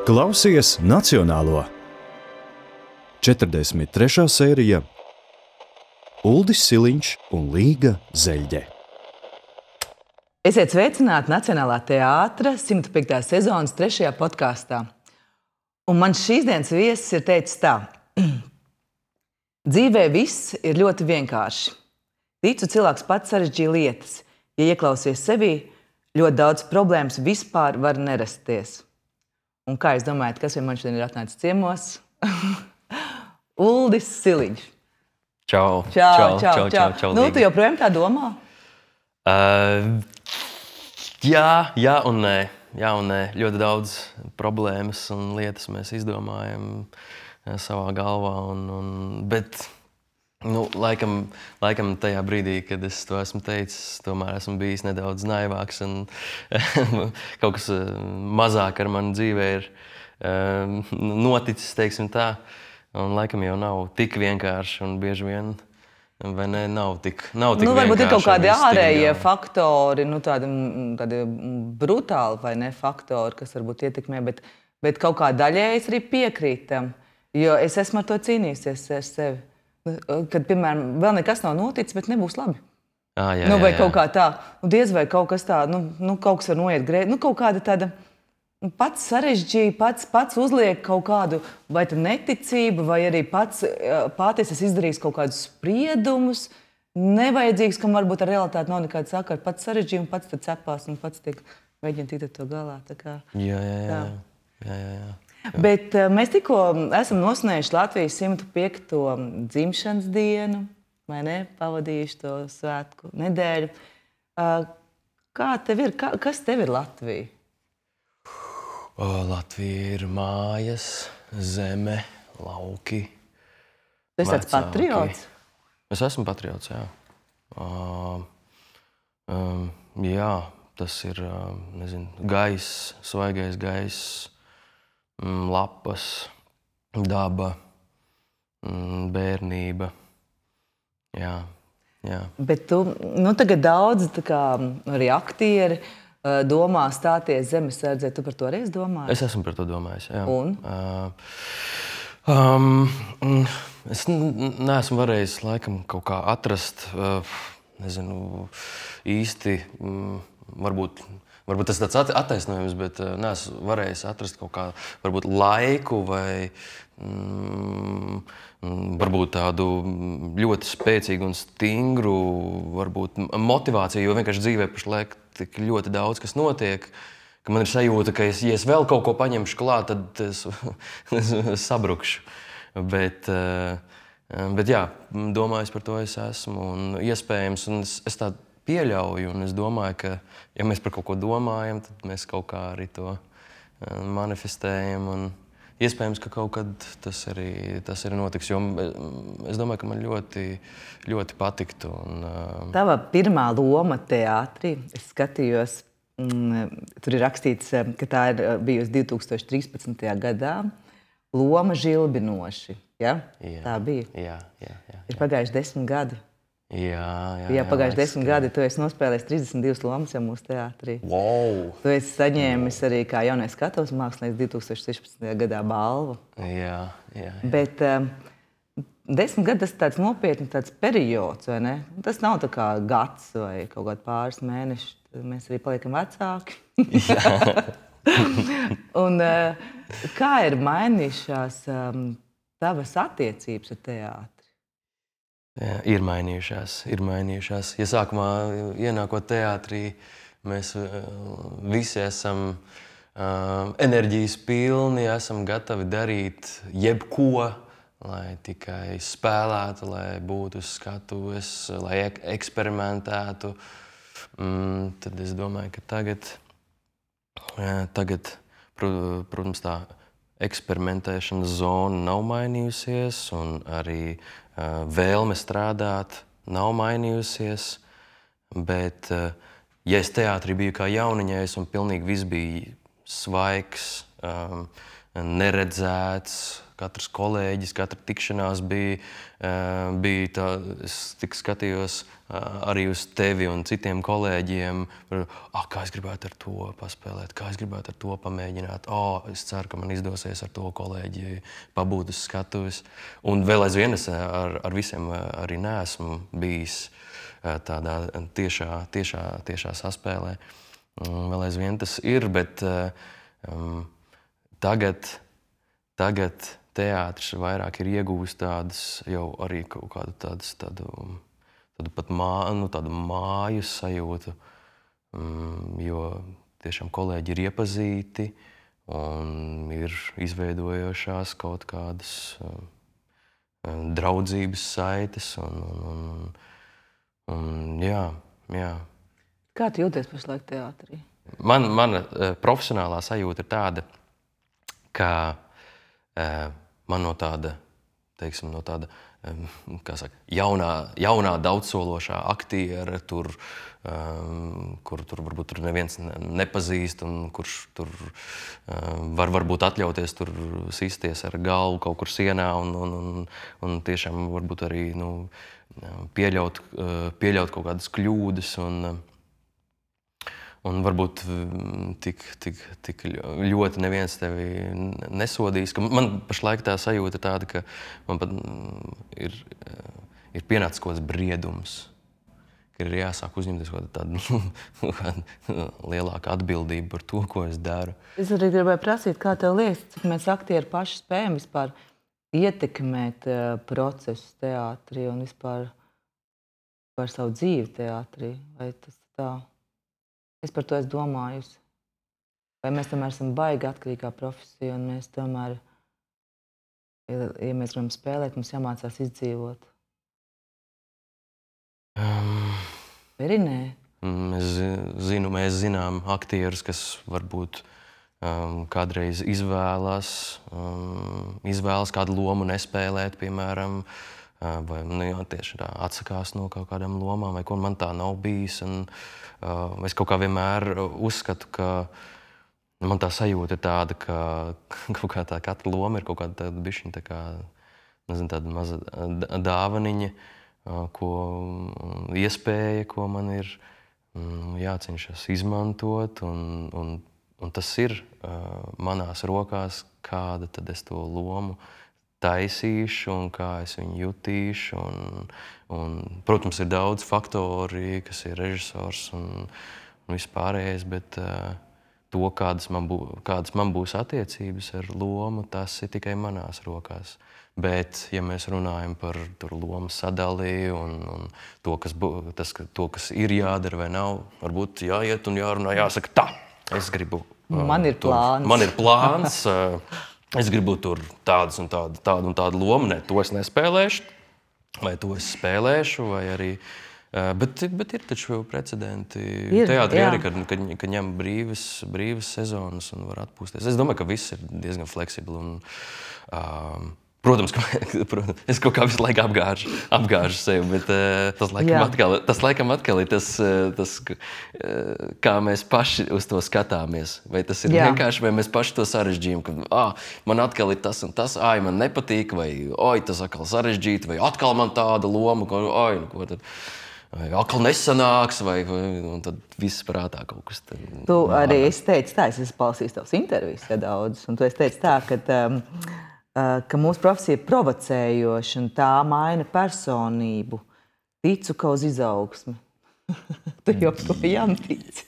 Klausies Nacionālo. 43. sērija Uldis Siliņš un Līga Zeļģe. Esiet sveicināti Nacionālā teātra 105. sezonas 3. podkāstā. Un man šīs dienas viesis ir teicis tā. Dzīvē viss ir ļoti vienkārši. Ticu, cilvēks pats sarežģīja lietas. Ja ieklausies sevī, ļoti daudz problēmas vispār var nerasties. Un kā jūs domājat, kas man šodien ir atnācis ciemos? Uldis Siliņš. Čau. Nu, tu joprojām tā domā? Jā un nē. Ļoti daudz problēmas un lietas mēs izdomājam savā galvā. Bet laikam tajā brīdī, kad es to esmu teicis, tomēr esmu bijis nedaudz naivāks un kaut kas mazāk ar mani dzīvē ir noticis, teiksim tā. Un laikam jau nav tik vienkārši un bieži vien, vai ne, nav tik vienkārši. Varbūt ir kaut kādi ārējie faktori, tādi brutāli vai ne faktori, kas varbūt ietekmē, bet kaut kā daļēji es arī piekrītu tam, jo es esmu ar to cīnījusies ar sevi. Kad, piemēram, vēl nekas nav noticis, bet nebūs labi. Vai kaut kā tā, diez vai kaut kas tā, kaut kas var noiet grēti, kaut kāda tāda pats sarežģīja, pats uzliek kaut kādu vai neticību, vai arī pats es izdarīju kaut kādus spriedumus, nevajadzīgs, kam varbūt ar realitāti nav nekāda sakara, pats sarežģīja un pats tad cepās un pats mēģina tikt ar to galā. Jā. Bet mēs tikko esam nosvinējuši Latvijas 105. dzimšanas dienu, vai ne? Pavadījuši to svētku nedēļu. Kā tev ir? Kas tev ir Latvija? Latvija ir mājas, zeme, lauki. Tu esi tāds patriots? Es esmu patriots, jā. Jā, tas ir, gaiss, svaigais gaiss. Lapas, daba, bērnība. Jā. Bet tu, tagad daudz arī aktieri domā stāties zemesardzē. Tu par to arī domāji? Es esmu par to domājis, jā. Un? Es neesmu varējis laikam kaut kā atrast, īsti, Varbūt tas ir tāds attaisnojums, bet neesmu varējis atrast kaut kā varbūt laiku vai varbūt tādu ļoti spēcīgu un stingru varbūt motivāciju, jo vienkārši dzīvē pašlaik tik ļoti daudz, kas notiek, ka man ir sajūta, ka ja es vēl kaut ko paņemšu klāt, tad es sabrukšu. Bet jā, domājis par to es esmu un iespējams, un es tā pieļauju, un es domāju, ka, ja mēs par kaut ko domājam, tad mēs kaut kā arī to manifestējam, un iespējams, ka kaut kad tas arī notiks, jo es domāju, ka man ļoti, ļoti patiktu. Tava pirmā loma teātrī, es skatījos, tur ir rakstīts, ka tā ir bijusi 2013. gadā, loma Žilbinoši, ja? Tā bija? Jā. Ir pagājuši 10 gadi. Jā, pagājuši 10 gadi, tu esi nospēlējis 32 lomas jau mūsu teātrī. Wow! Tu esi saņēmis arī kā jaunais skatuves mākslinieks 2016. gadā balvu. Jā. Bet 10 gadi tas ir tāds nopietns tāds periods, vai ne? Tas nav tā kā gads vai kaut kādi pāris mēneši. Mēs arī paliekam vecāki. Un kā ir mainījušās tavas attiecības ar teātri? Jā, ir mainījušās. Ja sākumā ienākot teātrī, mēs visi esam enerģijas pilni, esam gatavi darīt jebko, lai tikai spēlētu, lai būtu uz skatuves, lai eksperimentētu. Tad es domāju, ka tagad, protams, tā eksperimentēšanas zona nav mainījusies un arī vēlme strādāt nav mainījusies, bet, ja es teātrī biju kā jauniņais un pilnīgi viss bija svaigs, neredzēts, katrs kolēģis, katra tikšanās bija tā, es tik skatījos arī uz tevi un citiem kolēģiem, kā es gribētu ar to paspēlēt, kā es gribētu ar to pamēģināt. Es ceru, ka man izdosies ar to kolēģi pabūt uz skatuves. Un vēl aizvien es ar visiem arī neesmu bijis tādā tiešā saspēlē. Vēl aizvien tas ir, bet tagad teātris vairāk ir iegūst tādas jau arī kaut kādu tādu pat tādu māju sajūtu, jo tiešām kolēģi ir iepazīti un ir izveidojošās kaut kādas draudzības saites un jā. Kā tu jūties pašlaik teātrī? Mana profesionālā sajūta ir tāda, ka man no tāda, teiksim, kā saka, jaunā daudzsološā aktiera, kur varbūt tur neviens nepazīst un kurš tur varbūt atļauties tur sisties ar galvu kaut kur sienā un tiešām varbūt arī pieļaut kaut kādas kļūdas un varbūt tik ļoti neviens tevi nesodīs. Man pašlaik tā sajūta tāda, ka man pat ir pienācis kaut kāds briedums, ka ir jāsāk uzņemties tāda lielāka atbildība par to, ko es daru. Es arī gribēju prasīt, kā tev liekas, cik mēs aktieri paši spējam vispār ietekmēt procesus teātrī un vispār par savu dzīvi teātrī? Vai tas tā? Es par to esmu domājusi. Vai mēs tomēr esam baigi atkarīgā profesija un mēs tomēr, ja mēs gribam spēlēt, mums jāmācās izdzīvot? Vai arī nē? Mēs zinām aktierus, kas varbūt kādreiz izvēlas kādu lomu nespēlēt, piemēram, vai tieši tā atsakās no kaut kādām lomām, vai ko man tā nav bijis. Es kaut kā vienmēr uzskatu, ka man tā sajūta ir tāda, ka kaut kā tā katra loma ir kaut kāda tāda bišķiņa, tā kā, nezinu, tāda maza dāvaniņa, iespēja, ko man ir jācenšas izmantot, un tas ir manās rokās, kāda tad es to lomu taisīšu un kā es viņu jutīšu. Protams, ir daudz faktori, kas ir režisors un vispārējais, bet to, kādas man būs attiecības ar lomu, tas ir tikai manās rokās. Bet, ja mēs runājam par lomu sadali un to, kas ir jādara vai nav, varbūt jāiet un jārunā, jāsaka tā, es gribu. Man ir plāns. Man ir plāns. Es gribu tur tādu un tādu lomu, ne, to es nespēlēšu, vai to es spēlēšu, vai arī. Bet ir taču precedenti teātrī arī, kad ņem brīvas sezonas un var atpūsties. Es domāju, ka viss ir diezgan fleksibli. Protams, es kaut kā visu laiku apgāžu sevi, bet tas laikam atkal ir tas, kā mēs paši uz to skatāmies. Vai tas ir vienkārši, vai mēs paši to sarežģījam, ka man atkal ir tas un tas, man nepatīk, vai tas atkal sarežģīti, vai atkal man tāda loma, ko tad atkal nesanāks, un tad viss prātā kaut kas. Tu arī esi teicis tā, es esmu palasījis tavas intervijas daudz, un tu esi teicis tā, ka mūsu profesija ir provocējoša un tā maina personību. Ticu, ka uz izaugsmi. Tu joprojām tici,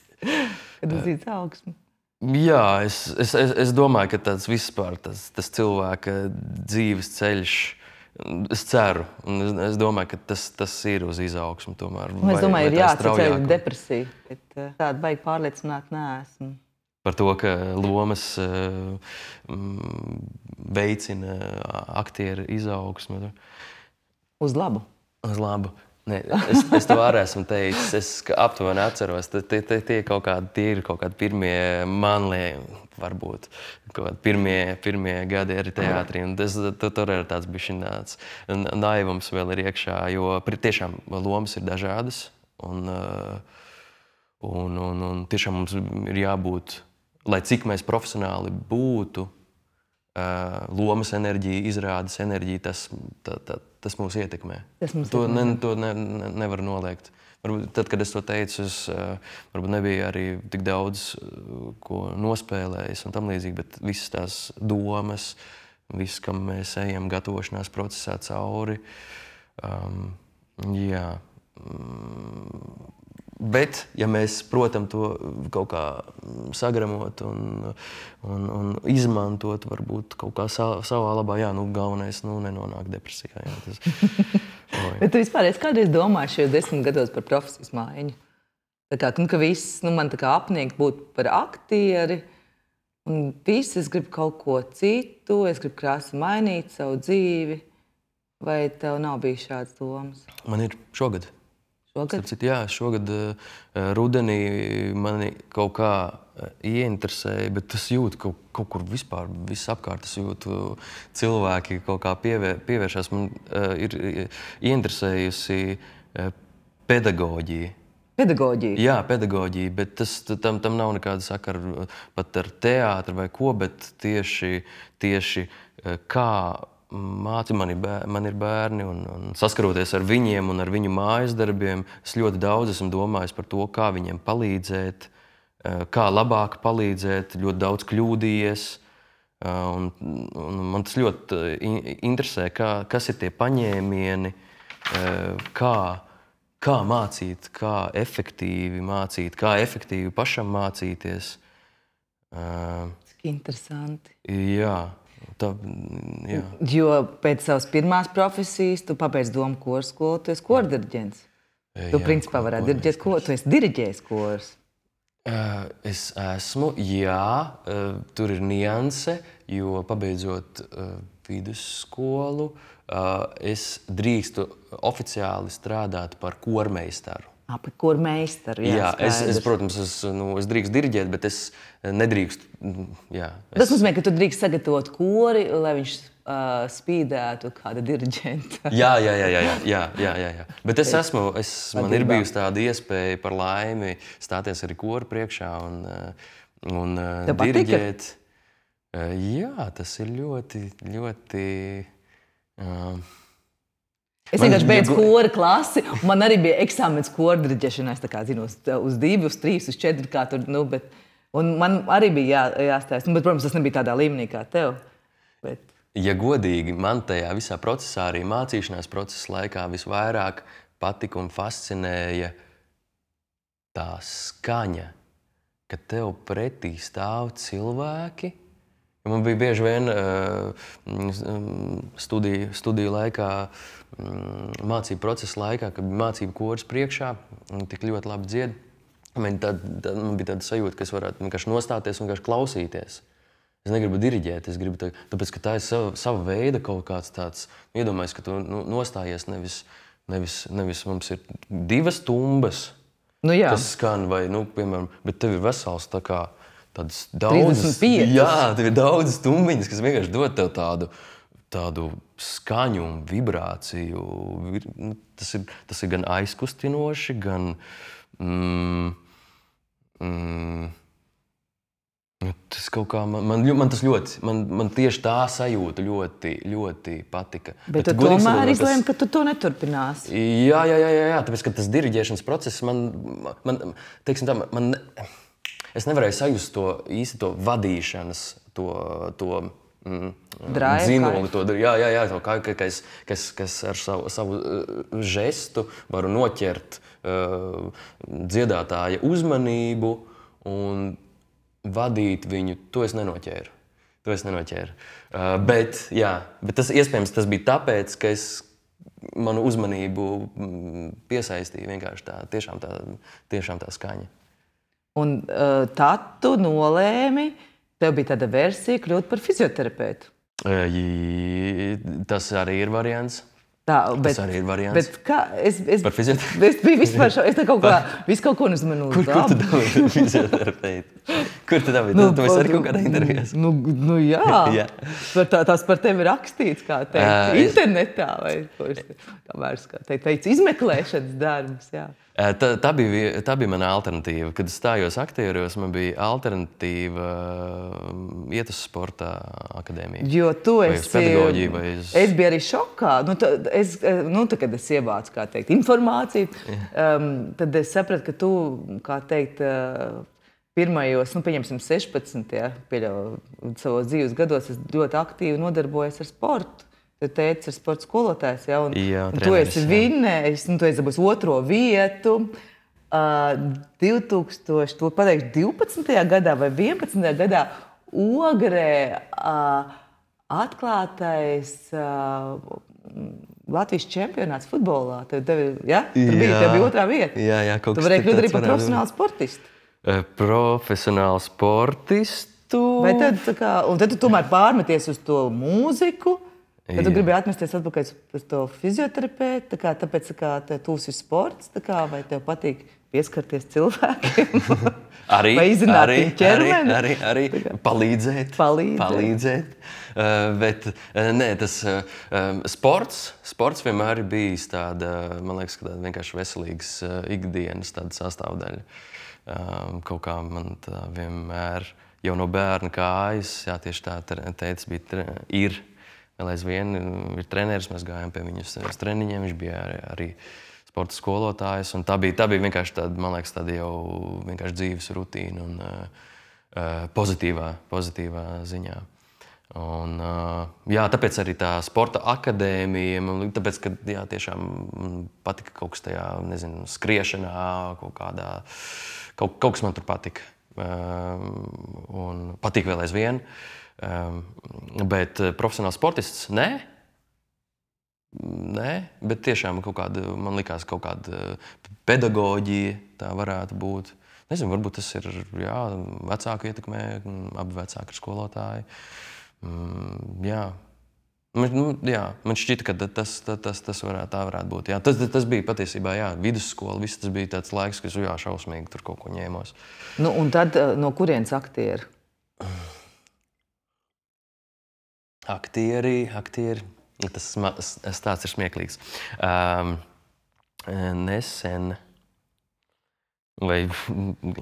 kad uz izaugsmi. Jā, es domāju, ka tāds vispār tas cilvēka dzīves ceļš, es ceru, un es domāju, ka tas ir uz izaugsmi tomēr. Es domāju, ir jāatceļ depresija, bet tāda baigi pārliecināt neesmu. Par to, ka lomas veicina aktieru izaugsmi. Uz labu? Uz labu. Ne, es to arī esmu teicis. Es aptuveni atceros, tie ir kaut kādi pirmie varbūt pirmie gadi arī teātrī. Tur ir tāds bišķināts naivums vēl ir iekšā, jo tiešām lomas ir dažādas. Un tiešām mums ir jābūt, lai cik mēs profesionāli būtu, lomas enerģija, izrādes enerģija, tas mūs ietekmē. To nevar noliegt. Varbūt tad, kad es to teicu, es varbūt nebija arī tik daudz, ko nospēlējis un tam līdzīgi, bet visas tās domas, viss, kam mēs ejam gatavošanās procesā cauri, jā. Bet, ja mēs, protams, to kaut kā sagramot un izmantot, varbūt kaut kā savā labā, galvenais nenonāk depresijā. Bet tu vispār esi kādreiz domājis šajos 10 gados par profesijas maiņu? Tā kā, ka viss man tā kā apniek būt par aktieri, un viss, es gribu kaut ko citu, es gribu krāsi mainīt savu dzīvi. Vai tev nav bijis šāds domas? Man ir šogad. Šogad? Jā, šogad rudenī mani kaut kā ieinteresēja, bet es jūtu kaut kur vispār, viss apkārt, es jūtu cilvēki kaut kā pievēršās. Man ir ieinteresējusi pedagoģija. Pedagoģija? Jā, pedagoģija, bet tam nav nekāda sakara pat ar teātri vai ko, bet tieši kā man ir bērni un saskaroties ar viņiem un ar viņu mājas darbiem, es ļoti daudz esmu domājis par to, kā viņiem palīdzēt, kā labāk palīdzēt, ļoti daudz kļūdījies. Un man tas ļoti interesē, kas ir tie paņēmieni, kā mācīt, kā efektīvi pašam mācīties. Interesanti. Jā. Jā. Jo pēc savas pirmās profesijas tu pabeidz domu koru skolu, tu esi kordiriģents. Tu principā varētu diriģēt koru, tu esi diriģējis korus. Es esmu, jā, tur ir nianse, jo pabeidzot vidusskolu, es drīkstu oficiāli strādāt par kormeistaru. Par kormeistaru, jā. Es, protams, es drīkstu diriģēt, bet es nedrīkstu. Jā, Tas nozīmē, ka tu drīkst sagatavot kori, lai viņš spīdētu kāda diriģenta. Jā. Bet man ir bijusi tāda iespēja par laimi stāties arī koru priekšā un diriģēt. Jā, tas ir ļoti, ļoti... Es vienkārši beidzu kora klasi, un man arī bija eksāmens kora diriģēšanā. Es tā kā zinu, uz 2, uz 3, uz 4, kā tur, un man arī bija jāstāsta. Bet, protams, tas nebija tādā līmenī kā tev. Bet... Ja godīgi, man tajā visā procesā, arī mācīšanās procesa laikā visvairāk patika un fascinēja tā skaņa, ka tev pretī stāv cilvēki. Man bija bieži vien studiju laikā, mācību procesa laikā, kad bija mācību koris priekšā un tik ļoti labi dzied. Man bija tāda sajūta, ka es varētu vienkārši nostāties un vienkārši klausīties. Es negribu diriģēt, es gribu tāpēc, ka tā ir sava veida kaut kāds tāds, iedomājies, ka tu nostājies nevis mums ir 2 stumbas, kas skan vai, piemēram, bet tev ir vesels tā kā tādas daudzas, tev ir daudz stumbiņas, kas vienkārši dod tev tādu skaņu un vibrāciju. Tas ir gan aizkustinoši, gan tas kaut kā man tas ļoti, man tieši tā sajūta ļoti, ļoti patika. Bet tu tomēr izlēmi, ka tu to neturpināsi. Jā, tāpēc, ka tas diriģēšanas process teiksim tā, es nevarēju sajust to vadīšanas, to dzinuli, kas ar savu žestu varu noķert dziedātāja uzmanību un vadīt viņu. To es nenoķēru. Bet tas iespējams tas bija tāpēc, ka manu uzmanību piesaistīja vienkārši tiešām tā skaņa. Un tad tu nolēmi, tev bija tāda versija kļūt par fizioterapeitu. Tas arī ir variants. Tas arī ir variants. Bet kā, Par fizioterapeitu? Es biju vispār es tā kaut kā, visu kaut ko nezinu. Kur tu dabūji fizioterapeitu? Kur tu dabūji? Tu esi arī kaut kādā intervijās. Jā. Tās par tevi rakstīts, kā teikt, internetā vai kamēr, kā teikt, izmeklēšanas darbs, jā. Tā bija mana alternatīva. Kad es stājos aktieros, man bija alternatīva iet uz sporta akadēmiju. Jo tu vai uz pedagoģiju, vai uz... Es biju arī šokā. Kad es ievācu, kā teikt, informāciju, tad es sapratu, ka tu, kā teikt, pirmajos, pieņemsim 16, savos dzīves gados, es ļoti aktīvi nodarbojos ar sportu. Tu teici, ir sporta skolotājs, ja? Un tu esi vinnējis, tu esi dabūjis 2. vietu. 2012. gadā vai 11. gadā Ogrē atklātais Latvijas čempionāts futbolā. Tev bija 2. vieta. Jā, kaut kas tu varēji kļūt arī par profesionālu sportistu. Profesionālu sportistu? Vai tad, un tad tu tomēr pārmeties uz to mūziku? Tad tu gribēji atmesties atpakaļ uz to fizioterapeitu, tāpēc, ka tev tūs ir sports, vai tev patīk pieskarties cilvēkiem? Vai izzināt viņu ķermeni? Arī palīdzēt. Bet nē, tas sports vienmēr ir bijis tāda, man liekas, tāda vienkārši veselīgas ikdienas tāda sastāvdaļa. Kaut kā man tā vienmēr jau no bērna kājas, jā, tieši tā teica, ir. Vēl aizvien ir treneris, mēs gājām pie viņas uz treniņiem, viņš bija arī sporta skolotājs. Tā bija vienkārši tāda, man liekas, tāda jau vienkārši dzīves rutīna un pozitīvā ziņā. Un, jā, tāpēc arī tā sporta akadēmija, tāpēc, ka jā, tiešām patika kaut kas tajā, nezinu, skriešanā, kaut kas man tur patika. Un patīk vēl aizvien. Bet profesionāls sportists nē, bet tiešām man likās kaut kāda pedagoģija tā varētu būt. Nezinu, varbūt tas ir vecāku ietekmē, abi vecāki ir skolotāji. Jā. Man šķita, ka tas varētu būt. Jā. Tas bija patiesībā vidusskola, viss tas bija tāds laiks, kas šausmīgi tur kaut ko ņēmos. Un tad no kurienes aktieri? Aktieri, tas stāsts ir smieklīgs. Nesen, vai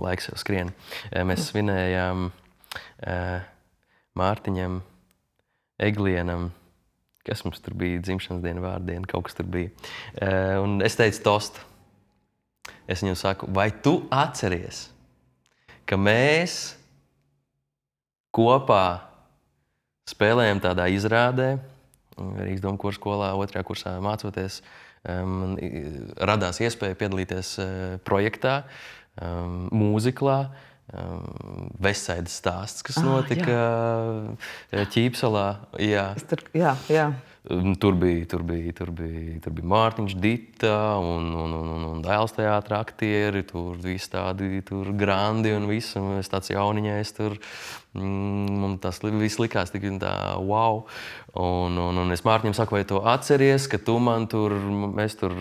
laiks jau skrien, mēs svinējām Mārtiņam, Eglienam, kas mums tur bija, dzimšanas diena, vārdiena, kaut kas tur bija. Un es teicu tostu. Es viņam saku, vai tu atceries, ka mēs kopā spēlējām tādā izrādē, Rīgas Domkora skolā, 2. kursā mācoties. Radās iespēja piedalīties projektā, mūziklā, Vestsaidas stāsts, kas notika Ķīpsalā. Jā. Tur bija Mārtiņš, Dita un Dēls teātra aktieri, tur visi tādi grandi un viss, un es tāds jauniņais tur. Man tas viss likās tik tā, wow. Un es Mārtiņam saku, vai tu atceries, ka tu man tur, mēs tur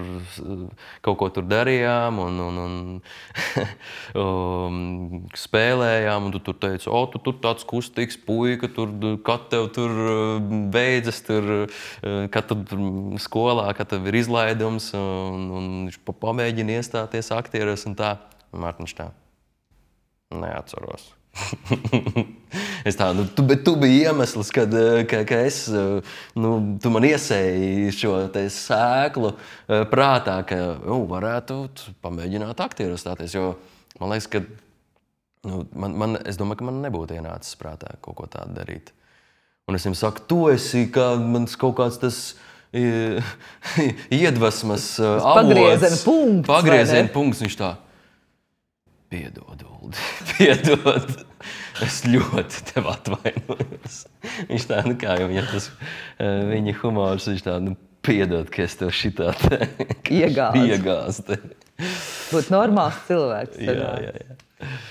kaut ko tur darījām un spēlējām, un tu tur teici, tu tur tāds kustīgs puika, kad tev tur beidzas, kad tur skolā, kad tev ir izlaidums, un viņš pamēģina iestāties aktieros un tā. Mārtiņš tā, neatceros. Es tā, bet tu biji iemesls, ka es, tu man iesēji šo te sēklu prātā, ka varētu pamēģināt aktieros stāties, jo man liekas, ka es domāju, ka man nebūtu ienācis prātā kaut ko tādu darīt. Un es viņam saku, tu esi mans kaut kāds tas iedvesmas avots. Pagrieziena punkts. Viņš tā, piedod, Uldi, piedod. Es ļoti tev atvainojos. Viņš tā, kā jau viņam tas, viņa humors, viņš tā, piedod, ka es tev šitā te iegāzu. Būt normāls cilvēks. Jā.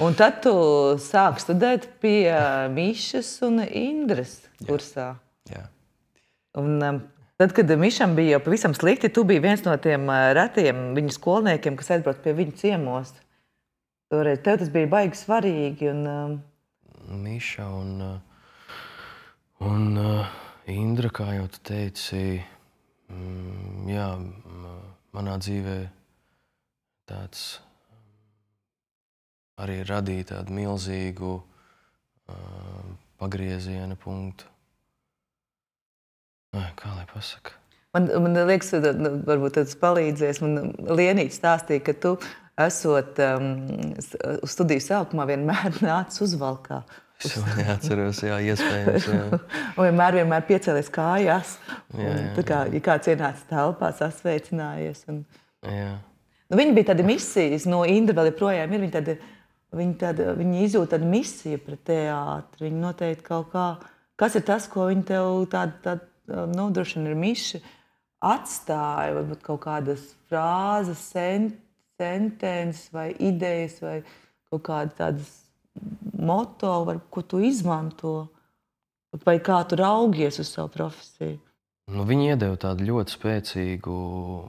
Un tad tu sāki studēt pie Mišas un Indras kursā. Jā. Un Tad, kad Mišam bija jau pavisam slikti, tu biji viens no tiem retiem viņu skolniekiem, kas aizbrauc pie viņu ciemos. Toreiz tev tas bija baigi svarīgi. Miša un Indra, kā jau tu teici, jā, manā dzīvē tāds arī radīja tādu milzīgu pagrieziena punktu. Kā lai pasaka? Man liekas, varbūt tas palīdzēs. Man Lienīte stāstīja, ka tu esot uz studiju sākumā vienmēr nācis uzvalkā. Es neatceros, jā, iespējams. Jā. Un vienmēr piecēlies kājās. Tā kā, ja kāds ienāca telpā, sasveicinājies. Jā. Viņi bija tādi misijas, no Indra vēl joprojām ir. Viņi izjūt tādu misiju pret teātri. Viņi noteikti kaut kā, kas ir tas, ko viņi tev droši vien ir Miša atstāja, varbūt kaut kādas frāzes, sentences vai idejas vai kaut kādas tādas moto, ko tu izmanto, vai kā tu raugies uz savu profesiju? Viņi iedeva tādu ļoti spēcīgu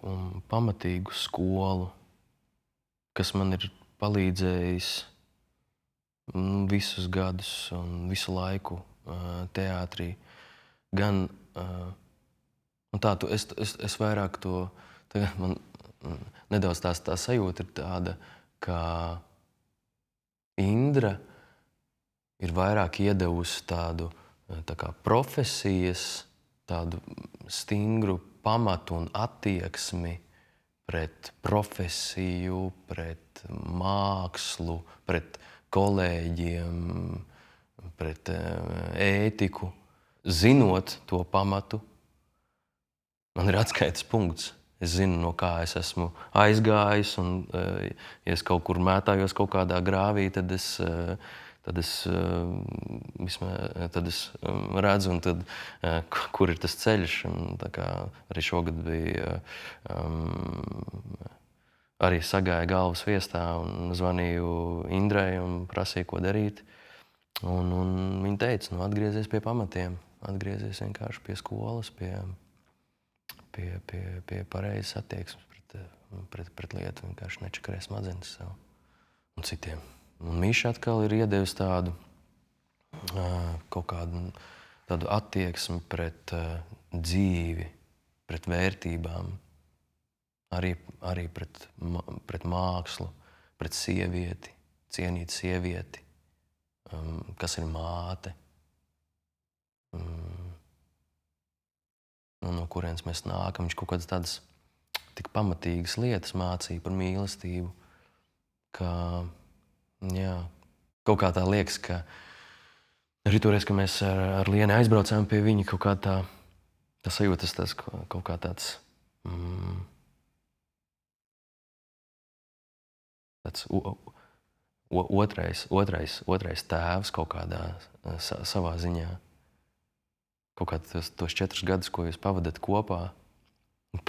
un pamatīgu skolu, kas man ir palīdzējis visus gadus un visu laiku teātrī. Gan es vairāk to, man nedaudz tā sajūta ir tāda, ka Indra ir vairāk iedevusi tādu tā kā profesijas, tādu stingru pamatu un attieksmi pret profesiju, pret mākslu, pret kolēģiem, pret ētiku. Zinot to pamatu, man ir atskaites punkts. Es zinu, no kā es esmu aizgājis, un ja es kaut kur mētājos kaut kādā grāvī, tad es redzu, un tad, kur ir tas ceļš. Un, tā kā arī šogad bija, arī sagāja galvas viestā un zvanīju Indrai un prasīju, ko darīt. Un viņa teica, atgriezies pie pamatiem. Atgriezies vienkārši pie skolas, pie pareizes attieksmes pret lietu. Vienkārši nečakarē smadzenes sev un citiem. Un Miša atkal ir iedevis tādu kaut kādu tādu attieksmi pret dzīvi, pret vērtībām, arī pret mākslu, pret sievieti, cienīt sievieti, kas ir māte. No kurienes mēs nākam. Viņš kaut kādas tādas tik pamatīgas lietas mācīja par mīlestību, ka, jā, kaut kā tā liekas, ka arī toreiz, ka mēs ar Lieni aizbraucām pie viņa, kaut kā tā sajūtas tas kaut kā tāds, tāds otrais tēvs kaut kādā savā ziņā. Kaut kā tos 4 gadus, ko jūs pavadat kopā,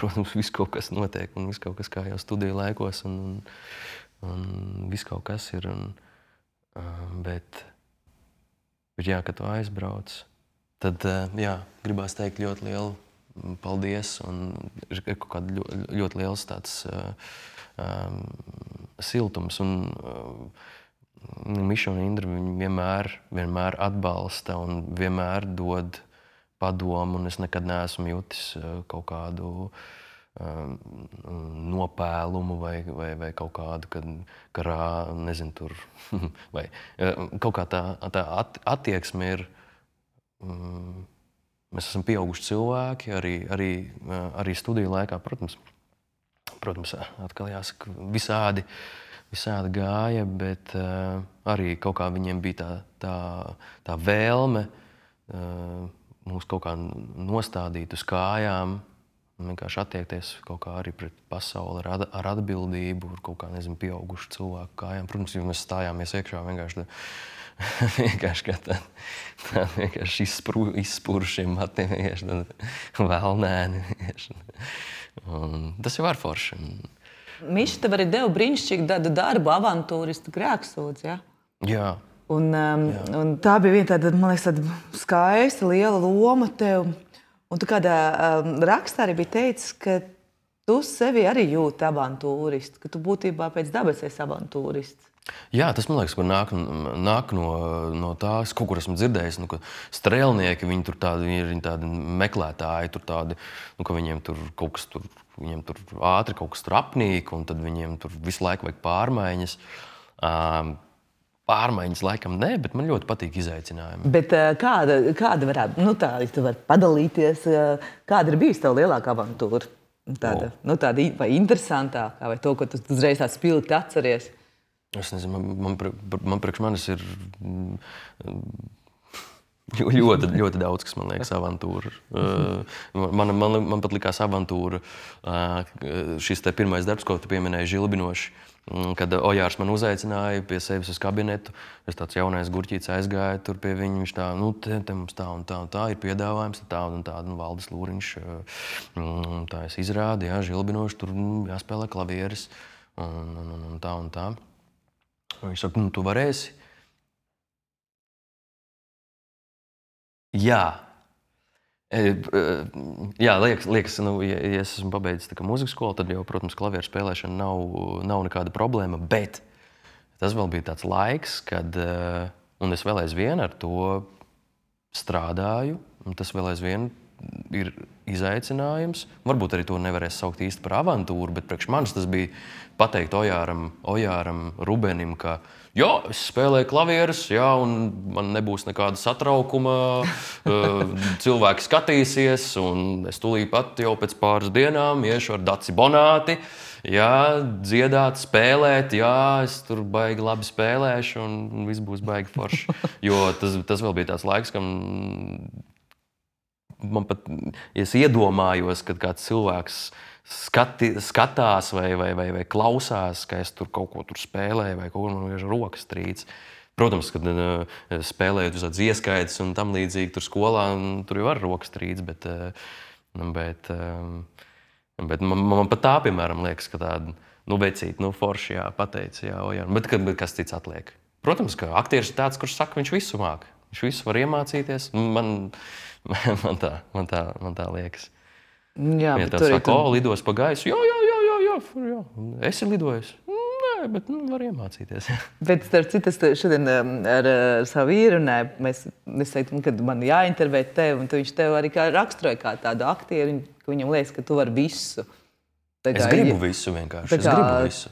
protams, viss kaut kas notiek, un viss kaut kas kā jau studiju laikos, un viss kaut kas ir. Bet jā, kad tu aizbrauc, tad jā, gribās teikt ļoti lielu paldies, un ir kaut kāda ļoti liels tāds siltums. Un Miša un Indra vienmēr atbalsta un vienmēr dod padomu, un es nekad neesmu jutis kaut kādu nopēlumu vai kaut kādu, nezinu, tur, vai kaut kā tā attieksme ir. Mēs esam pieauguši cilvēki, arī studiju laikā, protams, atkal jāsaka, visādi gāja, bet arī kaut kā viņiem bija tā vēlme mūs kaut kā nostādīt uz kājām, vienkārši attiekties kaut kā arī pret pasauli ar atbildību, ar kaut kā, nezinu, pieaugušu cilvēku kājām. Protams, ja mēs stājāmies iekšā vienkārši kā tā vienkārši izspūrušiem matiem, vienkārši vēlnēni. Un tas jau var forši. Miša tev arī deva brīnišķīgu darbu, avantūristu grēksūdzi, ja? Jā. Un tā bija viena tāda, man liekas, tāda skaista, liela loma tev. Un tu kādā rakstā arī bija teicis, ka tu sevi arī jūti avantūristu, ka tu būtībā pēc dabas esi avantūrists. Jā, tas man liekas, ka nāk no tās, kaut kur esmu dzirdējis, ka strēlnieki, viņi tur ir tādi meklētāji, tur tādi, ka viņiem tur kaut kas tur, viņiem tur ātri kaut kas tur apnīk, un tad viņiem tur visu laiku vajag pārmaiņas. Pārmaiņas laikam nē, bet man ļoti patīk izaicinājumi. Bet kāda varētu, ja tu vari padalīties, kāda ir bijusi tava lielākā avantūra? Tāda vai interesantākā, vai to, ko tu uzreiz tā spilgti atceries? Es nezinu, man priekš manis ir ļoti daudz, kas man liekas avantūra. Man pat likās avantūra šis te pirmais darbs, ko tu pieminēji, Žilbinoši. Kad Ojārs man uzaicināja pie sevis uz kabinetu, es tāds jaunais gurķīts aizgāju tur pie viņa, viņš tā, te mums tā un tā ir piedāvājums, tā un tā, Valdis Lūriņš, tā es izrādu, jā, Žilbinoši, tur jāspēlē klavieres un tā un tā. Viņš saka, tu varēsi? Jā. Jā, liekas, ja es esmu pabeidzis mūzikas skolu, tad jau, protams, klavieru spēlēšana nav nekāda problēma, bet tas vēl bija tāds laiks, kad, un es vēl aizvien ar to strādāju, un tas vēl aizvien ir izaicinājums. Varbūt arī to nevarēs saukt īsti par avantūru, bet priekš manis tas bija pateikt Ojāram Rubenim, ka jā, es spēlēju klavierus, jā, un man nebūs nekāda satraukuma, cilvēki skatīsies, un es tūlīt pat jau pēc pāris dienām iešu ar Daci Bonāti, jā, dziedāt, spēlēt, jā, es tur baigi labi spēlēšu, un viss būs baigi forši. Jo tas vēl bija tāds laiks, kam man pat, ja es iedomājos, kad kāds cilvēks skatās vai klausās, ka es tur kaut ko tur spēlēju vai kaut ko man vienkārši rokas trīc. Protams, kad spēlējot uz tādas ieskaitas un tam līdzīgi tur skolā, tur jau var rokas trīc, bet man pat tā, piemēram, liekas, ka tāda, vecīt, forši, jā, pateici, jā, bet kas cits atliek. Protams, ka aktieris ir tāds, kurš saka, viņš visu māk. Viņš visu var iemācīties. Man tā liekas. Jā, ja tev saka, lidos pa gaisu, jā, esi lidojis. Nē, bet var iemācīties. Bet starp citu, es šodien ar savu vīru runāju, es teiktu, kad man jāintervē tevi, un viņš tev arī raksturoja kā tādu aktieru, ka viņam liekas, ka tu vari visu. Es gribu visu vienkārši, es gribu visu.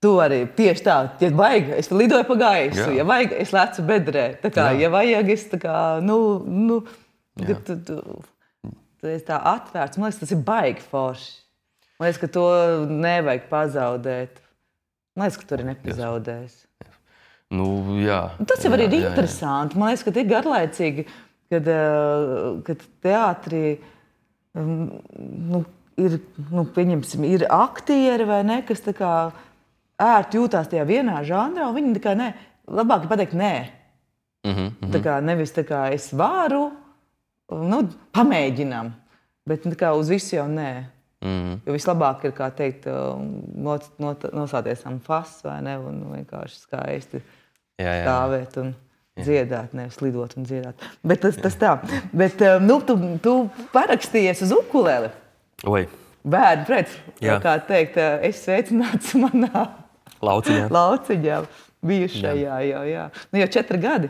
Tu arī tieši tā, ja vajag, es lidoju pa gaisu, ja vajag, es lecu bedrē. Tā kā, ja vajag, es tā kā, tu esi tā atvērts. Man liekas, tas ir baigi forši. Man liekas, ka to nevajag pazaudēt. Man liekas, ka tu arī nepazaudēs. Jā. Tas jau arī ir interesanti. Man liekas, ka tie ir garlaicīgi, kad teātrī pieņemsim, ir aktieri vai ne, kas tā kā ērti jūtās tajā vienā žanrā, un viņi tā kā nē, labāk ir pateikt nē. Tā kā nevis tā kā es varu, pamēģinam, bet tā kā uz visu jau nē. Jo vislabāk ir, kā teikt, nosāties am fas, vai ne, un vienkārši skaisti stāvēt un dziedāt, nevis lidot un dziedāt. Bet tas tā. Bet tu parakstījies uz ukuleli. Oi. Bērni pret, kā teikt, es sveicināts manā lauciņā bijušajā, jā. Jau 4 gadi.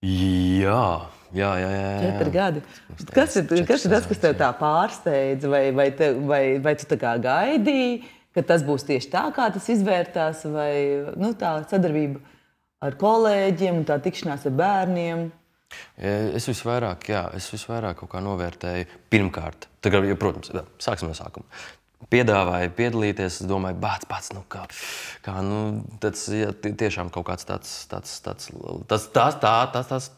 Jā. 4 gadi. Kas ir tas, kas tev tā pārsteidza, vai tu tā kā gaidīji, ka tas būs tieši tā, kā tas izvērtās, vai tā sadarbība ar kolēģiem un tā tikšanās ar bērniem? Es visvairāk kaut kā novērtēju pirmkārt. Tagad, protams, sāksim no sākuma. Piedāvāja piedalīties, es domāju, pats, tas tiešām kaut kāds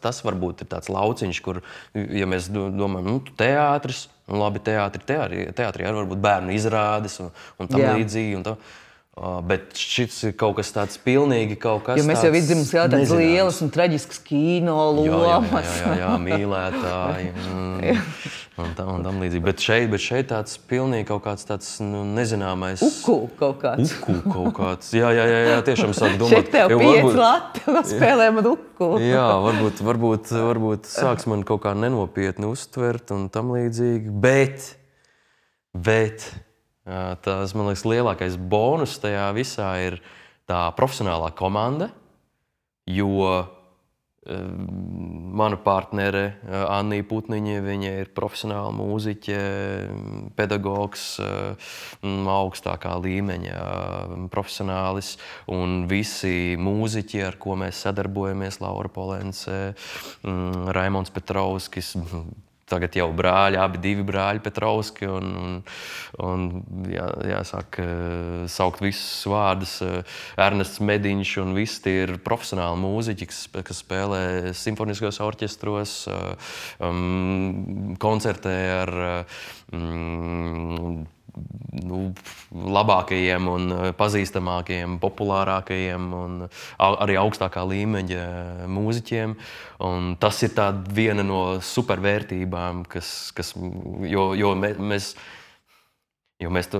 tas varbūt ir tāds lauciņš, kur, ja mēs domājam, teātris, labi, teātrī arī varbūt bērnu izrādes un tam līdzīgi. Bet šis ir kaut kas tāds pilnīgi kaut kas Jo mēs jau vidzīm skatām tādas lielas un traģiskas kino lomas. Jā, mīlētāji un tam līdzīgi. Bet šeit tāds pilnīgi kaut kāds tāds nezināmais... Uku kaut kāds. Jā, tiešām sāk domāt. Šeit tev 5 lati, spēlē man uku. Jā, varbūt sāks man kaut kā nenopietni uztvert un tam līdzīgi. Bet tas, man liekas, lielākais bonus tajā visā ir tā profesionālā komanda, jo mana partnere Annija Putniņa, viņa ir profesionāla mūziķe, pedagogs, augstākā līmeņa profesionālis, un visi mūziķi, ar ko mēs sadarbojamies, Laura Polence, Raimonds Petrovskis, tagad jau brāļi, divi brāļi Petrovski, un jāsāk saukt visus vārdus. Ernests Mediņš un visi tie ir profesionāli mūziķi, kas spēlē simfoniskos orķestros, koncertē ar labākajiem un pazīstamākajiem, populārākajiem un arī augstākā līmeņa mūziķiem. Un tas ir viena no supervērtībām, jo mēs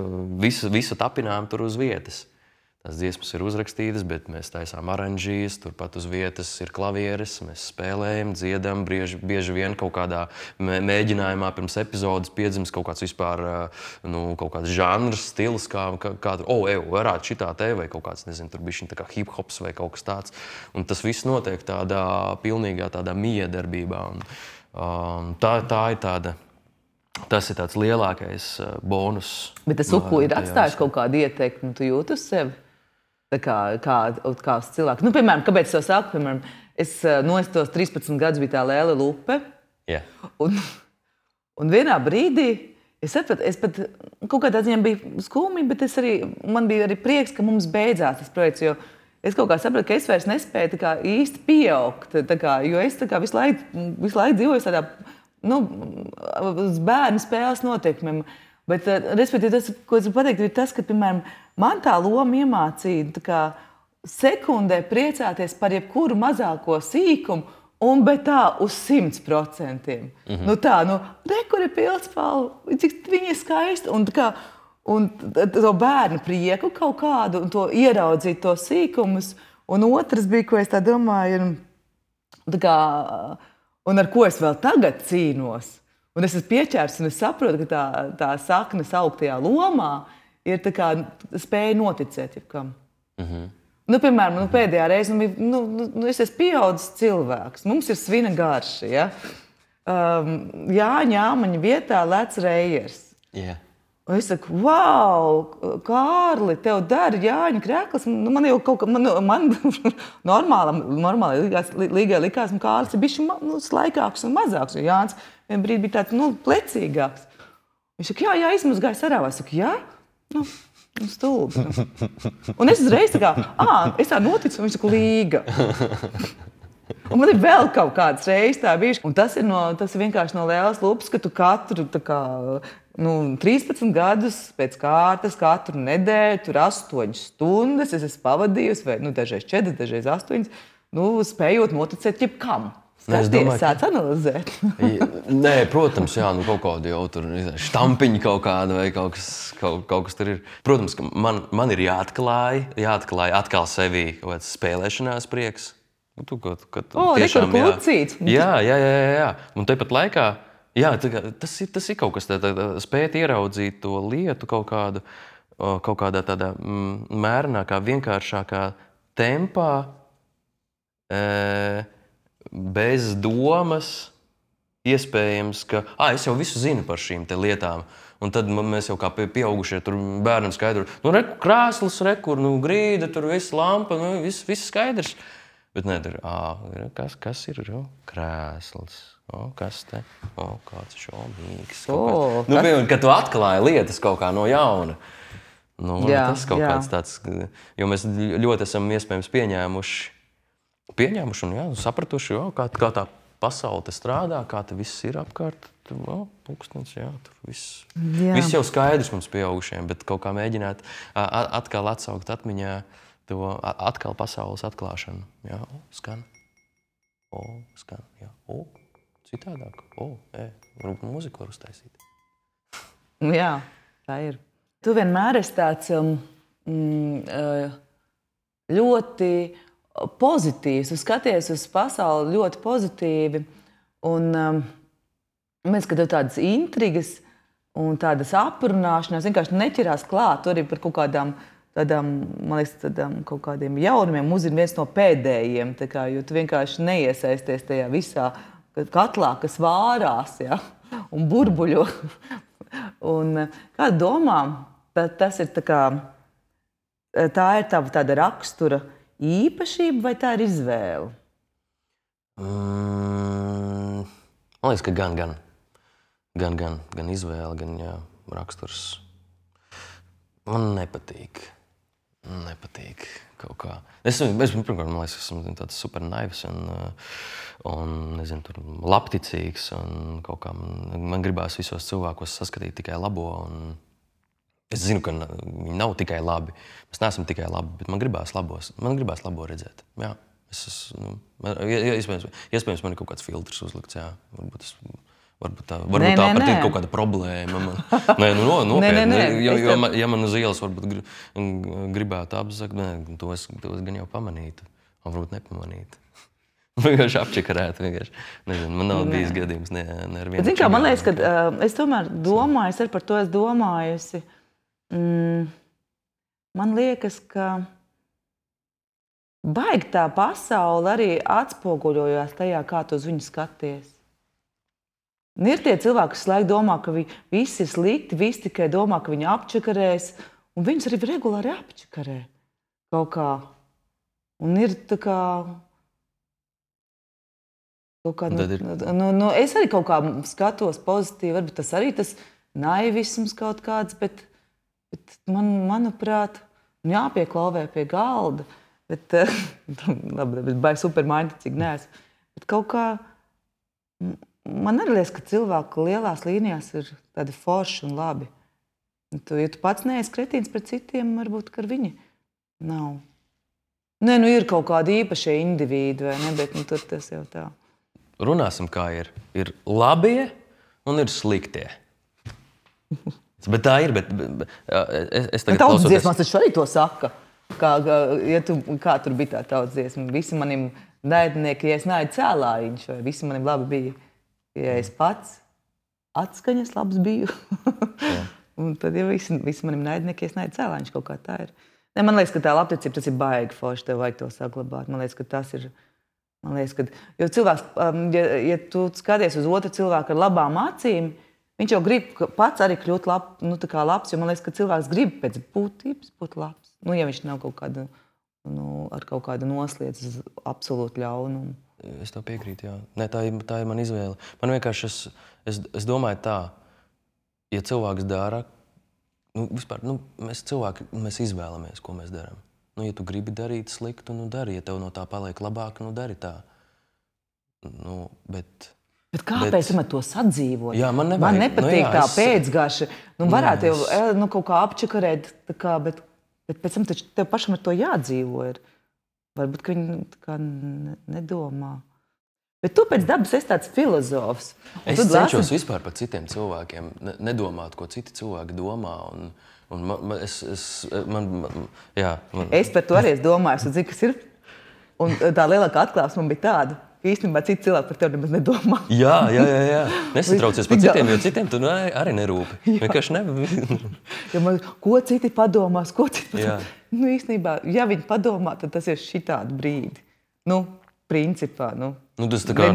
visu tapinām tur uz vietas. Tās dziesmas ir uzrakstītas, bet mēs taisām aranžijas, turpat uz vietas ir klavieres, mēs spēlējam, dziedam, bieži vien kaut kādā mēģinājumā pirms epizodes piedzimst kaut kāds vispār, kaut kāds žanrs, stils, kā tur, varētu šitā te, vai kaut kāds, nezinu, tur bišķiņ tā kā hip-hops vai kaut kas tāds. Un tas viss notiek tādā pilnīgā tādā miedarbībā. Tā ir tāda. Tas ir tāds lielākais bonus. Bet tas uku ir atstājis kaut kādu ieteikumu, tu jūti uz sevi? Kā uz cilvēku. Piemēram, kāpēc es to saku? Piemēram, es tos 13 gadus biju tā Lēle Lupe. Yeah. Un vienā brīdī es pat kaut kādā ziņā biju skumji, bet man bija arī prieks, ka mums beidzās tas projekts, jo es kaut kā sapratu, ka es vairs nespēju īsti pieaugt, jo es visu laiku dzīvoju tādā uz bērnu spēles noteikumiem. Bet, respektīvi, tas, ko es gribu pateikt, ir tas, ka, piemēram, man tā loma iemācīja sekundē priecāties par jebkuru mazāko sīkumu, bet tā uz 100%. Kur ir pildspalva, cik viņa ir skaista, un to bērnu prieku kaut kādu, un to ieraudzīt to sīkumus. Un otrs bija, ko es tā domāju, un ar ko es vēl tagad cīnos. Un es esmu pieķērs, un es saprotu, ka tā sakne sauktajā lomā ir spēja noticēt jebkam. Piemēram, pēdējā reize es esmu pieaudzis cilvēks. Mums ir svina garša. Ja? Jāņa Āmaņa vietā lec Reijers. Yeah. Un es saku, wow, Kārli, tev dara Jāņa Krekls. Man jau kaut kā, man normāli līgai likās, ka Kārlis ir bišķi slaikāks un mazāks, jo Jānis vien brīdi bija tāds, plecīgāks. Viņš saka, jā, izmazgāja sarāvā. Es saku, jā? Stulbi. Un es uzreiz es tā noticu, un viņš saka, līga. Un man ir vēl kaut kāds reizes tā bijuši. Un tas ir vienkārši no Lēles Lupas, ka tu katru 13 gadus pēc kārtas, katru nedēļu, tur 8 stundas es esmu pavadījusi, vai dažreiz 4, dažreiz 8, spējot noticēt jebkam. Skaties, sāc analizēt. Nē, protams, jā, kaut kādu jau tur štampiņu kaut kādu vai kaut kas tur ir. Protams, ka man ir jāatklāj atkal sevī kaut kāds spēlēšanās prieks. Tiešām, jā. Un tepat laikā, jā, tas ir kaut kas spēt ieraudzīt to lietu kaut kādā tādā mērenākā, vienkāršākā tempā, bez domas, iespējams, ka es jau visu zinu par šīm te lietām. Un tad mēs jau kā pieaugušie tur bērnam skaidru, krēsls, grīda, tur viss lampa, viss skaidrs. Bet nē, tur, kas ir krēsls? Kas te? Kāds šaubīgs. Kad tu atklāji lietas kaut kā no jauna. Tas kaut kāds tāds, jo mēs ļoti esam iespējams pieņēmuši un sapratuši, kā tā pasaule te strādā, kā te viss ir apkārt. Pūkstens, jā, tur viss. Jā. Viss jau skaidrs mums pieaugušiem, bet kaut kā mēģināt atkal atsaukt atmiņā to atkal pasaules atklāšanu. Jā, skan. Skan, jā. Citādāk. Varbūt mūziku var uztaisīt. Jā, tā ir. Tu vienmēr esi tāds ļoti pozitīvs. Tu skaties uz pasauli ļoti pozitīvi. Un mēs, ka tev tādas intrigas un tādas aprunāšanās vienkārši neķerās klāt. Tur arī par kaut kādām tādām, man liekas, kaut kādiem jaunumiem uzzina viens no pēdējiem. Jo tu vienkārši neiesaisties tajā visā katlā, kas vārās, ja, un burbuļo. Un kāda domā, tas ir tā ir tava tāda rakstura īpašība vai tā ir izvēle? Man liekas, ka gan izvēle, gan jā, raksturs. Man nepatīk kaut kā. Pirmkārt, man liekas, esmu tāds super naivs un nezinu, tur labticīgs. Un kaut kā man gribās visos cilvēkos saskatīt tikai labo. Un es zinu, ka viņi nav tikai labi. Mēs neesam tikai labi, bet man gribās labo redzēt. Jā, iespējams, man ir kaut kāds filtrs uzlikts. Jā, varbūt tā pat ir kaut kāda problēma. Nopietni. Ja man uz ielas varbūt gribētu apzakt, to es gan jau pamanītu. Varbūt nepamanītu. Vienkārši apčakarētu. Nezinu, man nav bijis gadījums ne ar vienu. Zini kā, man liekas, ka es tomēr domāju, es par to esmu domājusi. Man liekas, ka baigi tā pasaule arī atspoguļojās tajā, kā tu uz viņu skaties. Ir tie cilvēki, kas laiku domā, ka visi ir slikti, visi tikai domā, ka viņi apčakarēs, un viņus arī regulāri apčakarē kaut kā. Un ir tā kā... es arī kaut kā skatos pozitīvi, varbūt tas arī tas naivisms kaut kāds, bet manuprāt, jāpieklauvē pie galda, bet vai supermainticīgi neesmu. Bet kaut kā... Man arī liekas, ka cilvēku lielās līnijās ir tādi forši un labi. Ja tu pats neesi kretīns pret citiem, varbūt, ka viņi nav. Nē, ir kaut kādi īpašie indivīdi, vai ne, bet tur tas jau tā. Runāsim, kā ir. Ir labie un ir sliktie. Bet tā ir, es tagad tautas dziesmās taču arī to saka. Kā tur bija tā tautas dziesma. Visi manim naidnieki, ja es naidu cēlājiņš, vai visi manim labi bija. Ja es pats atskaņas labs biju, un tad ja visi manim naidnieki, es naidu cēlāņš, kaut kā tā ir. Ne, man liekas, ka tā labticība, tas ir baigi forši, tev vajag to saglabāt. Man liekas, ka tas ir, jo cilvēks, ja tu skaties uz otru cilvēku ar labām acīm, viņš jau grib pats arī kļūt labs, jo man liekas, ka cilvēks grib pēc būtības būt labs. Ja viņš nav kaut kāda, ar kaut kādu noslēdz uz absolūtu ļaunumu. Es tev piekrītu, jā. Nē, tā ir mana izvēle. Man vienkārši, es domāju tā, ja cilvēks dara, mēs cilvēki, mēs izvēlamies, ko mēs darām. Ja tu gribi darīt sliktu, dari. Ja tev no tā paliek labāk, dari tā. Bet kāpēc man to sadzīvot? Jā, man nepatīk tā pēcgaša. Varētu jau kaut kā apčakarēt, bet pēc tam taču tev pašam ar to jādzīvo ir. Varbūt, ka viņi nedomā. Bet tu pēc dabas esi tāds filozofs. Es cenšos vispār par citiem cilvēkiem nedomāt, ko citi cilvēki domā. Es par to arī domāju, un zinu, kas ir. Un tā lielākā atklāsme man bija tāda, ka īstenībā citi cilvēki par tevi nemaz nedomā. Jā. Nesatraucies par citiem, jo citiem tu arī nerūpi. Vienkārši ko citi padomās, ko citi padomās. Īstenībā, ja viņi padomā, tad tas ir šitādi brīdi. Principā, tas tā kā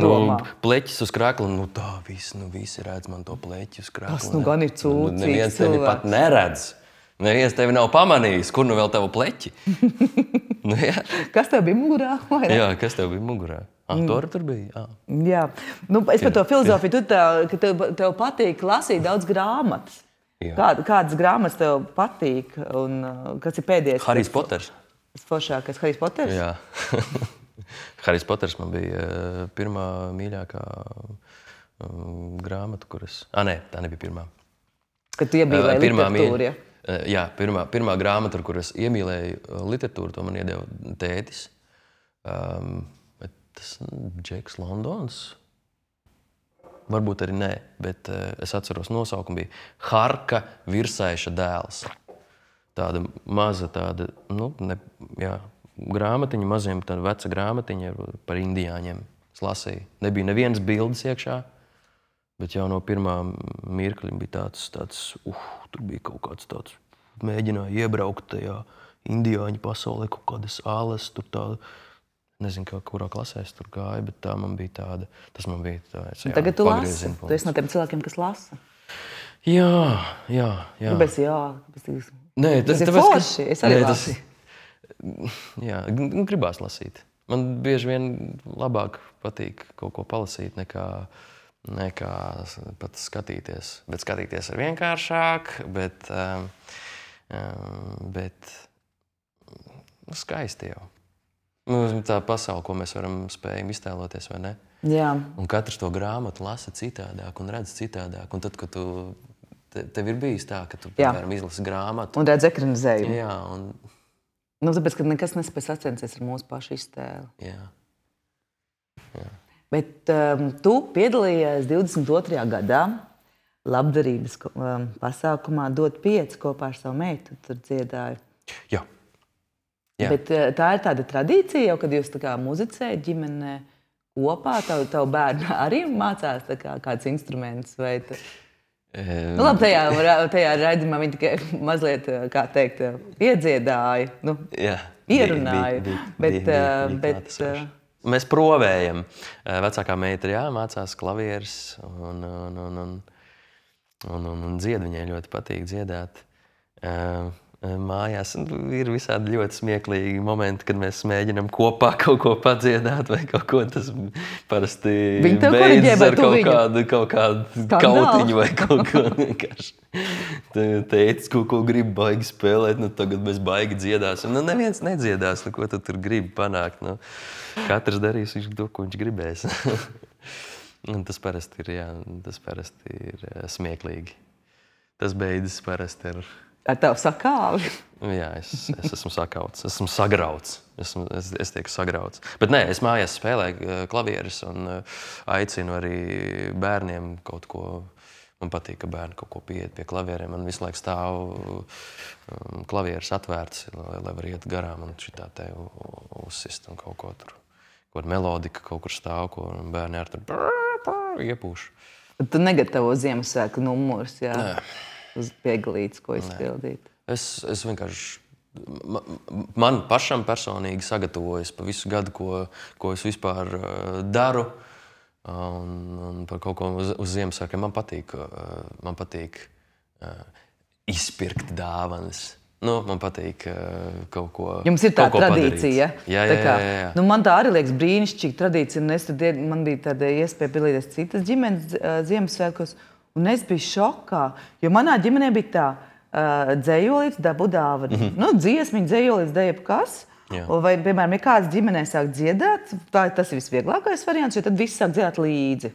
pleķis uz krēkla, tā visi redz man to pleķi uz krēkla. Tas gan ir cūcīgs neviens tevi pat neredz. Neviens tevi nav pamanījis, kur vēl tavu pleķi. Kas tev bija mugurā? Jā, kas tev bija mugurā? Tur bija, jā. Es par to filozofiju, ka tev patīk lasīt daudz grāmatas. Kādas grāmatas tev patīk un kas ir pēdējais? Harijs Poters. Tas foršākais Harijs Poters? Jā. Harijs Poters man bija pirmā mīļākā grāmata, kuras... Nē, tā nebija pirmā. Kad tu iemīlēji literatūru, ja? Jā, pirmā grāmata, ar kuras iemīlēju literatūru, to man iedeva tētis. Tas Džeks Londons? Varbūt arī nē, bet es atceros nosaukumu bija Harka Virsaiša dēls. Tāda maza tāda, grāmatiņa, maziem tāda veca grāmatiņa par indiāņiem. Es lasīju. Nebija nevienas bildes iekšā, bet jau no pirmā mirkļa bija tāds, tur bija kaut kāds tāds, mēģināja iebraukt tajā indiāņu pasaulē, kaut kādas āles, tur tāda, nezinu, kurā klasē es tur gāju, bet tā man bija tāda, tas man bija tāds, jā, tagad tu lasi, tu esi no tiem cilvēkiem, kas lasa. Jā. Kāpēc jā? Nē, tas ir forši, es arī lasu. Jā, gribās lasīt. Man bieži vien labāk patīk kaut ko palasīt, nekā pat skatīties. Bet skatīties ir vienkāršāk, bet skaisti jau. Tā pasaule, ko mēs spējam iztēloties, vai ne? Jā. Un katrs to grāmatu lasa citādāk un redz citādāk. Un tad, kad tev ir bijis tā, ka tu, piemēram, izlasi grāmatu. Un redz ekranizējumu. Jā, un... tāpēc, ka nekas nespēj sacensties ar mūsu pašu iztēli. Jā. Bet tu piedalījies 22. gadā labdarības pasākumā Dot 5 kopā ar savu meitu. Tur dziedāju. Jā. Bet tā ir tāda tradīcija, jau, kad jūs tā kā muzicējat ģimenē kopā, tavu bērnu arī mācās kāds instruments? Vai labi, tajā raidījumā viņi tikai mazliet, kā teikt, iedziedāja, ierunāja. Bet mēs provējam. Vecākā meita mācās klavieres un dzied. Viņai ļoti patīk dziedāt. Mājās ir visādi ļoti smieklīgi momenti, kad mēs mēģinām kopā kaut ko padziedāt vai kaut ko. Tas parasti beidzas ar kaut kādu kautiņu vai kaut ko vienkārši. Teicis, ko grib baigi spēlēt, tagad mēs baigi dziedāsim. Neviens nedziedās, ko tu tur gribi panākt. Katrs darīs to, ko viņš gribēs. Tas parasti ir smieklīgi. Tas beidzas parasti ar tavu sakāvi? Jā, es esmu sakauts, esmu sagrauts. Es tieku sagrauts. Bet nē, es mājās spēlēju klavieres un aicinu arī bērniem kaut ko. Man patīk, ka bērni kaut ko pieiet pie klavieriem. Man visu laiku stāv klavieres atvērts, lai var iet garām un šitā te uzsist un kaut ko tur. Kaut melodika kaut kur stāv, ko bērni ar tur iepūš. Tu negatavo Ziemassvētku numurus, jā? Nē. Uz pieglītes, ko izpildīt? Es vienkārši... Man pašam personīgi sagatavojas pa visu gadu, ko es vispār daru. Un par kaut ko uz Ziemassvētkiem man patīk izpirkt dāvanas. Man patīk kaut ko padarīt. Jums ir tā tradīcija? Jā. Man tā arī liekas brīnišķīga tradīcija. Man bija tāda iespēja piedalīties citas ģimenes Ziemassvētkos. Un es biju šokā, jo manā ģimenē bija tā, dzējolīts dabu dāvanu. Dziesmiņa, dzējolīts, jebkas. Vai, piemēram, ja kāds ģimenē sāk dziedāt, tas ir visvieglākais variants, jo tad viss sāk dziedāt līdzi.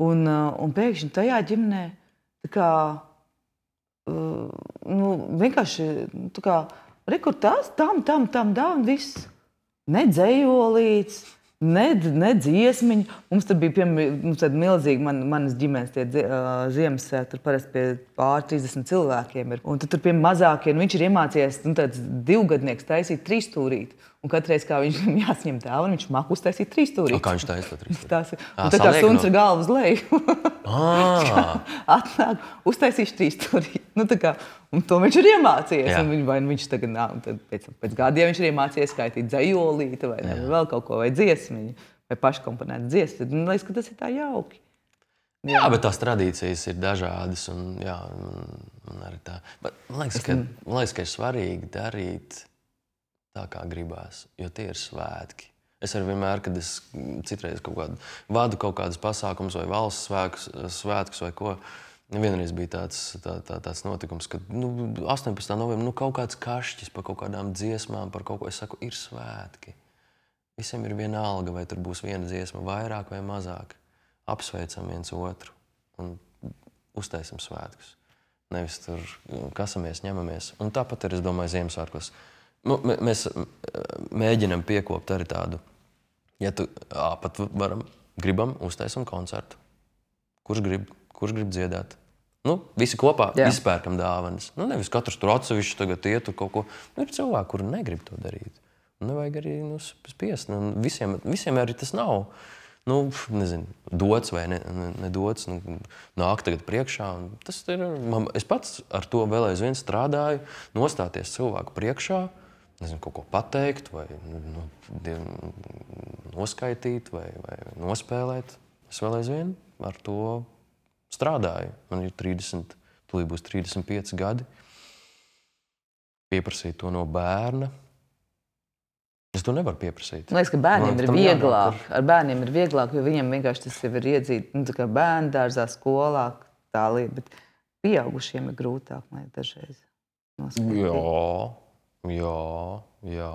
Un pēkšņi tajā ģimenē vienkārši rekur tās, tam, un viss. Ne dzējolīts, ne dziesmiņa. Mums tur bija tāda milzīga manas ģimenes Ziemassvētki. Tur parasti pie pār 30 cilvēkiem ir. Un tur pie mazākiem viņš ir iemācījies tāds 2-gadnieks taisīt 3-stūrīti. Un katreiz, kā viņam jāsņem dāvanu, viņš māk uztaisīt 3-stūrīti. Kā viņš taisa to 3-stūrīti? Un tā kā suns ar galvu uz leju. Atnāk, uztaisīšu 3-stūrīti. Un to viņš ir iemācījies. Un viņš tagad, pēc gadiem viņš ir iemācījies skaitīt dzējolīti vai vēl kaut ko, vai dziesmiņu, vai paškomponētu dziesmu. Man liekas, ka tas ir tā jauki. Jā, bet tās tradīcijas ir dažādas. Man arī tā. Man liekas, ka ir svarīgi darīt tā, kā gribās, jo tie ir svētki. Es arī vienmēr, kad es citreiz vadu kaut kādus pasākumus vai valsts svētkus vai ko, vienreiz bija tāds notikums, ka 18. novembrī kaut kāds kašķis par kaut kādām dziesmām, par kaut ko, es saku, ir svētki. Visiem ir viena alga, vai tur būs viena dziesma vairāk vai mazāk. Apsveicam viens otru un uztaisam svētkus. Nevis tur kasamies, ņemamies. Un tāpat ir, es domāju, Ziemassvētkos. Mēs mēģinam piekopt arī tādu, ja tu pat gribam uztaisam koncertu. Kurš grib dziedāt? Visi kopā izpērkam dāvanas. Nevis katrs tur atsevišķi tagad iet tur kaut ko. Ir cilvēki, kuri negrib to darīt. Nevajag arī spiest. Visiem arī tas nav. Nezinu, dots vai nedots. Nāk tagad priekšā. Tas ir, es pats ar to vēl aizvien strādāju. Nostāties cilvēku priekšā. Nezinu, kaut ko pateikt vai noskaitīt vai nospēlēt. Es vēl aizvien ar to strādāju. Man ir 30, tūlīt būs 35 gadi. Pieprasīt to no bērna. Es to nevaru pieprasīt. Man liekas, ka bērniem ir vieglāk. Ar bērniem ir vieglāk, jo viņam vienkārši tas jau ir iedzīt, tā kā bērndārzā, skolā, tā lieta. Bet pieaugušiem ir grūtāk, man dažreiz noskaitīt. Jā.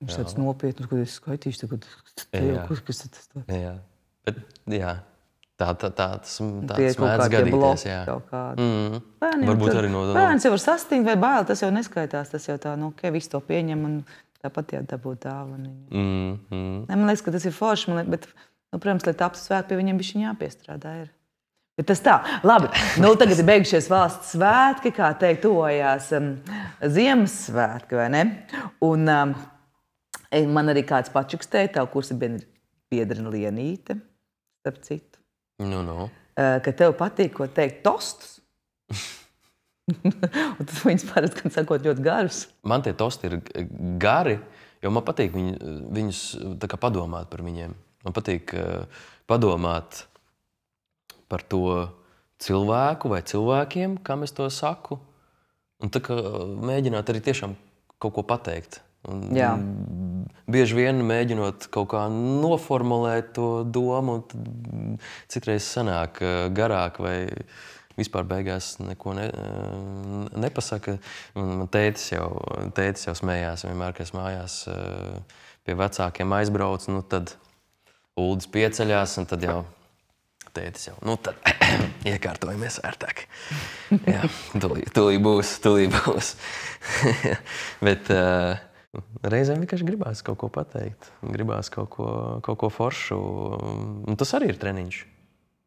Viņš tāds nopietnus, ko es skaitīšu tagad. Kas tas tā? Jā. Bet, jā. Tas mēdz gadīties, jā. Varbūt arī no... Bērns jau var sastingt vai bail, tas jau neskaitās. Tas jau tā, visu to pieņem un tāpat jādabūt dāvaniņu. Man liekas, ka tas ir forši, bet, protams, lai taptu svētki, pie viņiem bišķiņ jāpiestrādā ir. Bet tas tā. Labi, tagad ir beigušies valsts svētki, kā teikt, tuvojās Ziemassvētki, vai ne? Un man arī kāds pačukstēja, tavu kursa biedrina Lienīte, starp citu. Ka tev patīk, ko teikt, tostus. Un tas viņas parasti, kad sakot, ļoti garus. Man tie tosti ir gari, jo man patīk viņus tā kā padomāt par viņiem. Man patīk padomāt par to cilvēku vai cilvēkiem, kam es to saku. Un tā kā mēģināt arī tiešām kaut ko pateikt. Un bieži vien mēģinot kaut kā noformulēt to domu, citreiz sanāk garāk vai vispār beigās neko nepasaka. Man tētis jau smējās vienmēr, ka es mājās pie vecākiem aizbrauc, tad Uldis pieceļās un tad jau tētis jau, tad iekārtojamies ērtāk. Jā, tūlīt būs. Bet reizēm vienkārši gribās kaut ko pateikt, gribās kaut ko foršu. Un tas arī ir treniņš.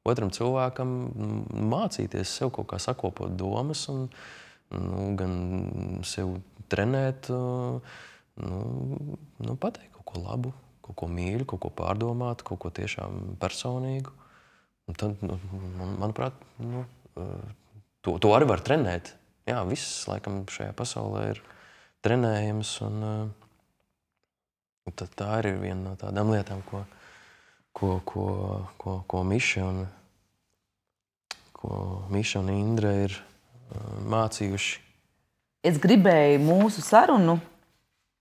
Otram cilvēkam mācīties sev kaut kā sakopot domas un gan sev trenēt, pateikt kaut ko labu, kaut ko mīļu, kaut ko pārdomāt, kaut ko tiešām personīgu. Un tad, manuprāt, to arī var trenēt. Jā, viss, laikam, šajā pasaulē ir trenējams, un tā ir viena no tādām lietām, ko Miša un Indra ir mācījuši. Es gribēju mūsu sarunu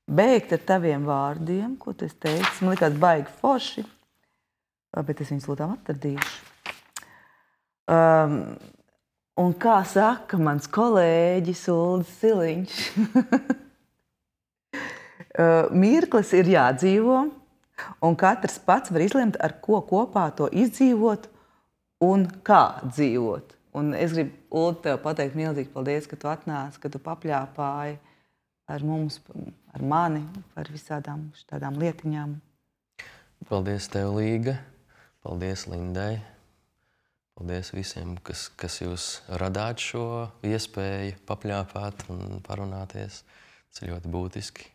beigt ar taviem vārdiem, ko tu teici. Man likās baigi forši, bet es viņus lūdām atradīšu. Un kā saka mans kolēģis Uldis Siliņš, mirklis ir jādzīvo, un katrs pats var izlemt, ar ko kopā to izdzīvot un kā dzīvot. Un es gribu, Uldi, tev pateikt milzīgi paldies, ka tu atnāci, ka tu papļāpāji ar mums, ar mani, par visādām tādām lietiņām. Paldies tev, Līga. Paldies Lindai. Paldies visiem, kas jūs radāt šo iespēju papļāpāt un parunāties. Tas ir ļoti būtiski.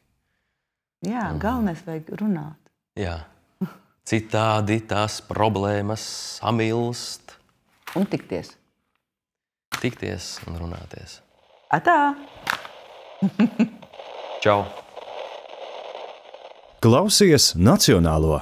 Jā, galvenais vajag runāt. Jā. Citādi tās problēmas samilst. Un tikties. Tikties un runāties. Atā! Čau! Klausies Nacionālo!